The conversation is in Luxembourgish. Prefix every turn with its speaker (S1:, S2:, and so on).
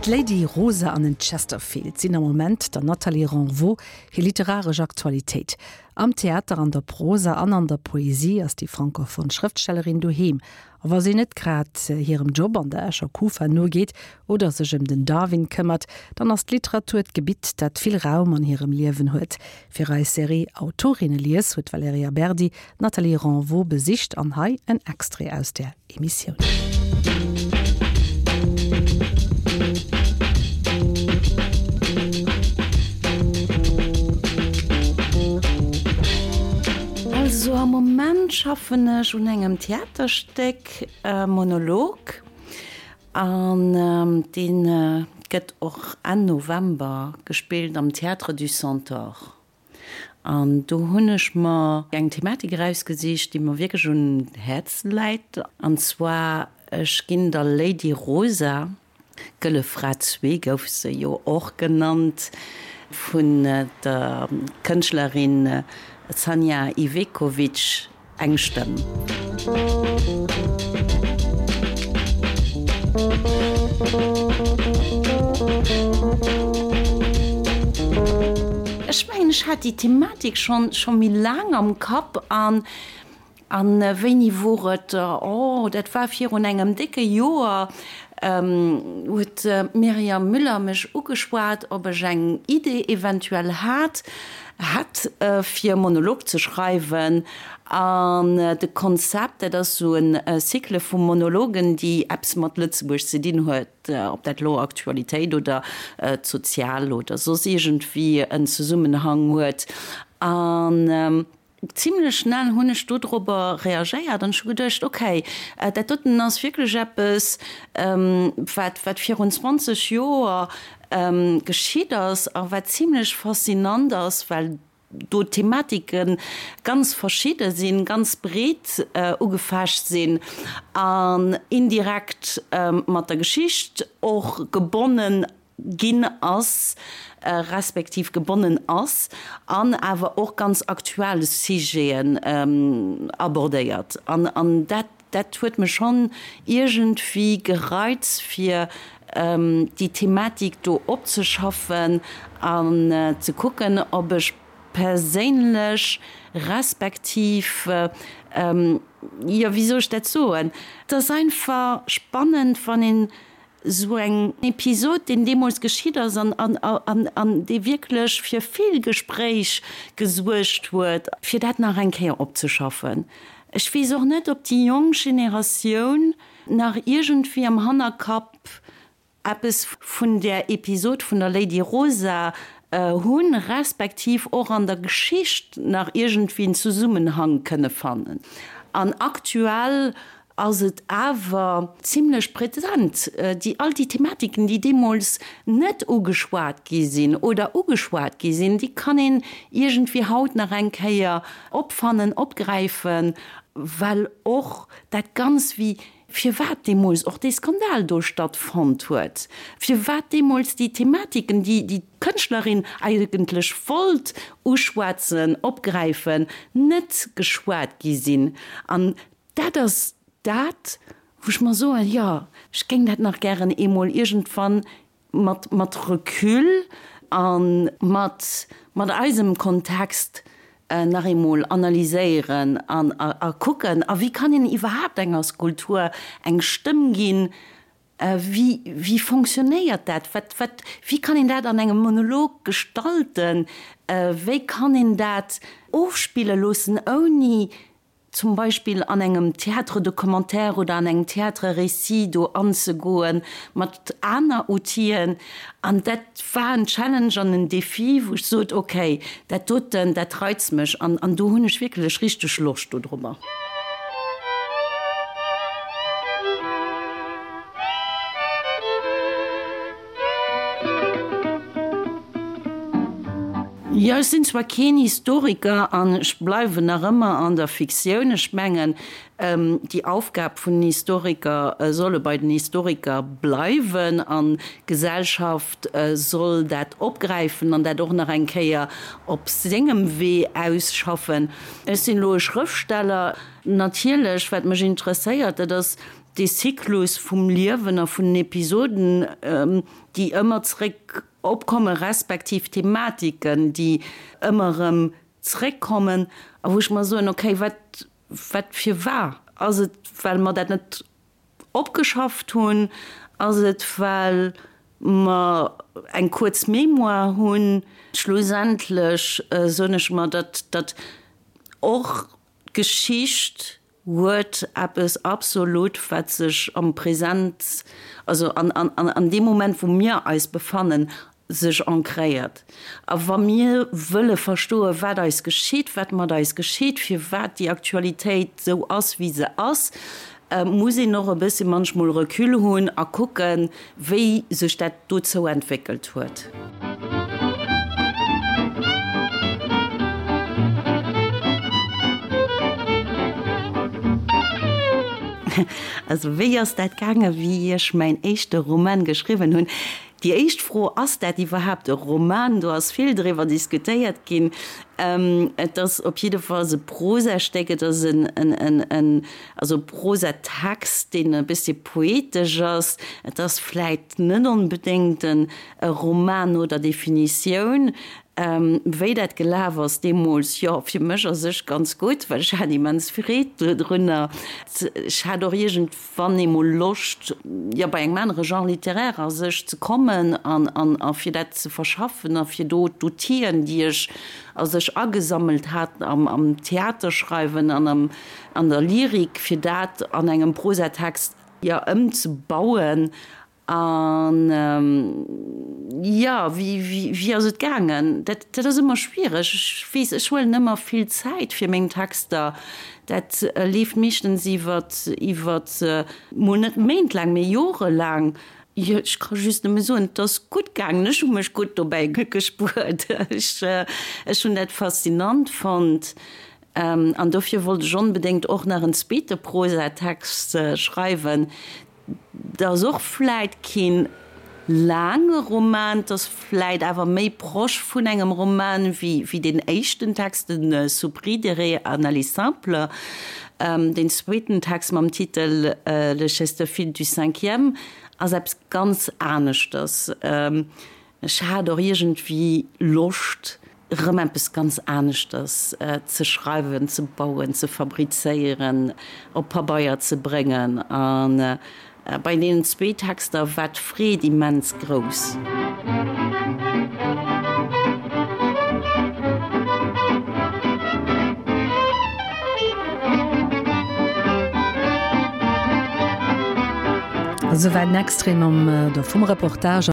S1: D'Lady Rosa an den Chesterfield sinn am Moment der Nathalie Renvaux hir literaresch Aktualitéit. Am Theater, an der Prosa an an der Poesie ass déi francophone Schrëftstellerin doheem. A wa si net grad hirem Job an der Escher Kufa nogeet oder sech ëm den Darwin këmmert, dann ass d'Literatur d'Gebitt, dat vill Raum an hirem Liewen huet. Fir eis Serie Autorinnelies huet d'Valerija Berdi d'Nathalie Renvaux besicht an hei en Extrait aus där Emissioun.
S2: Also am Moment schaffen ech un engem Theaterstéck, Monolog, an dee gëtt och Enn November gespillt am Théâtre du Centaure. An do hunn ech mer eng Thematik erausgesicht, déi mer wierklech un Häerz läit. An zwar, ech ginn der Lady Rosa, Gëlle Fra zwee gouf se jo och genannt, vun der Kënschtlerin Sanja Ivekovic, Eng Stëmm. Ech mengen, ech hat déi Thematik schonn scho méi laang am Kapp an An wéini wor et? Oh, dat war virun engem décke Joer, huet d'Myriam Müller mech ugeschwat, ob ech eng Idee eventuell hat, hätt, fir e Monolog ze schreiwen. An de Konzept, dat ass esou e Cycle vu Monologen, déi eppes mat Lëtzebuerg ze dinn huet, ob dat elo Aktualitéit oder d'Sozial oder soss iergendwéi en Zesummenhang huet. An Zimlech schnell hunn ech dodrobber reagéiert an ech hu geduecht, ok, dat doten ass wierklech eppes, wat wat virun 20 Joer geschitt ass a wat zimlech faszinant ass, well do d'Thematike ganz verschidde sinn, ganz breet ugefächt sinn an indirekt mat der Geschicht och gebonnen ginn ass, respektiv gebonnen ass, an awer och ganz aktuell Sujeten abordéiert. An dat, dat huet mech schonn iergendwéi gereizt, fir déi Thematik do opzeschaffen an ze kucken, ob ech perséinlech respektiv, jo, wéi soll ech dat soen, et ass einfach spannend, wann een Esou eng Episod, deen deemools geschitt ass an an dee wierklech fir vill Gespréich gesuergt huet, fir dat nach eng Kéier opzeschaffen. Ech weess och net, ob déi jonk Generatioun nach iergendwéi am Hannerkapp eppes vun där Episod vun der Lady Rosa hunn, respektiv och an der Geschicht nach iergendwéi en Zesummenhang kënne fannen. An aktuell ass et awer zimlech präsent, déi all déi Thematiken, déi deemools net ugeschwat gi sinn oder ugeschwat gi sinn, déi kann een iergendwéi haut nach eng Kéier opfannen, opgräifen, well och dat Ganz, wéi firwat deemools och dee Skandal do stattfonnt huet, firwat deemools déi Thematiken, déi déi Kënschtlerin eigentlech wollt uschwätzen, opgräifen, net geschwat gi sinn. An Dat ass dat, wou ech mer soen, jo, ech géing dat nach gären eemol iergendwann mat, mat Recul a mat, mat eisem Kontext nach eemol analyséieren an a kucken, a wéi kann een iwwerhaapt enger Skulptur eng Stëmm ginn, wéi, wéi fonctionnéiert dat, wat, wat, wéi kann een dat an engem Monolog gestalten, wéi kann een dat ofspille loossen, ouni zum Beispill an engem Théâtre de commentaire oder an engem Théâtre récit do anzegoen, mat aner Outill'en. An dat war en Challenge an en Défi, wou ech sot, okay, dat doten, dat reizt mech an an do hunn ech wierklech richteg Loscht dodrobber. Jo, ech sinn zwar keen Historiker an ech bleiwen nach ëmmer an der Fiktioun. Ech mengen, déi Aufgab vun den Historiker solle bei den Historiker bleiwen an d'Gesellschaft soll dat opgräifen an dat och nach eng Kéier op sengem Wee ausschaffen. Ech sinn elo e Schrëftsteller. Natierlech, wat mech interesséiert, dat ass. dee Zyklus vum Liewen a vun den Episoden, déi ëmmer zréck opkomme respektiv Thematiken, déi ëmmer erëm zréckkommen a wou ech mer soen, okay, wat, wat firwar? Ass et, well mer dat net opgeschafft hunn? Ass et, well mer eng kuerz Mémoire hunn? Schlussendlech soen ech mer, datt, datt och d'Geschicht huet eppes absolut, wat sech am Present, also an, an, an deem Moment, wou mir eis befannen, sech ancréiert. A wa mir wëlle verstoen, wat eis geschitt, wat mat eis geschitt, firwat déi Aktualitéit esou ass, wéi se ass, muss een och e bësse manchmol Recul hunn a kucken, wéi sech dat dozou entwéckelt huet. Also wéi ass dat gaangen, wéi ech mäin éischte Roman geschriwwen hunn? Déi éischt Fro, Ass dat iwwerhaapt e Roman? Do ass vill driwwer diskutéiert ginn. Et ass op jiddefalls e Prosastéck, et ass en, en, en, also e Prosatext, deen e bëssi poetesch ass. Et ass vläit net onbedéngt en e Roman no der Definitioun. Wéi dat gelaf ass deemools, jo, fir mech a sech ganz gutt, well ech hat immens Freed dodrunner. Ech hat och iergend. wann ee mol Loscht, jo, bei engem anere Genre littéraire a sech ze kommen an, an, a fir dat ze verschaffen a fir do d'Outill'en, déi ech a sech agesammelt hat am, am Theaterschreiwen an am, an der Lyrik, fir dat an engem Prosatext, jo, ëmzebauen. An, jo, wéi, wéi, wéi ass et gaangen? Dat, dat ass ëmmer schwiereg. Ech weess, ech huelen ëmmer vill Zäit fir meng Texter. Dat leeft meeschtens iwwer, iwwer mol net méintlaang, mee jorelaang. Jo, ech ka just nëmme soen, et ass gutt gaangen. Ech hu mech gutt dobäi gespuert. Ech, ech hunn dat faszinant fonnt. An dofir wollt ech onbedéngt och nach en zweete Prosatext schreiwen. 't ass och vläit keen laange Roman, 't ass vläit awer méi proche vun engem Roman wéi deen éischten Text, de Soupridere an aller simple. Deen zweeten Text mam Titel Le Chesterfield du cinquième ass eppes ganz aneschters. Ech hat och iergendwéi Loscht, erëm eppes ganz aneschters ze schreiwen, ze bauen, ze fabrizéieren, op Pabeier ze bréngen. A bei deenen zwee Texter war d'Freed immens grouss.
S1: Esouwäit en Extrait mam, vum Reportage.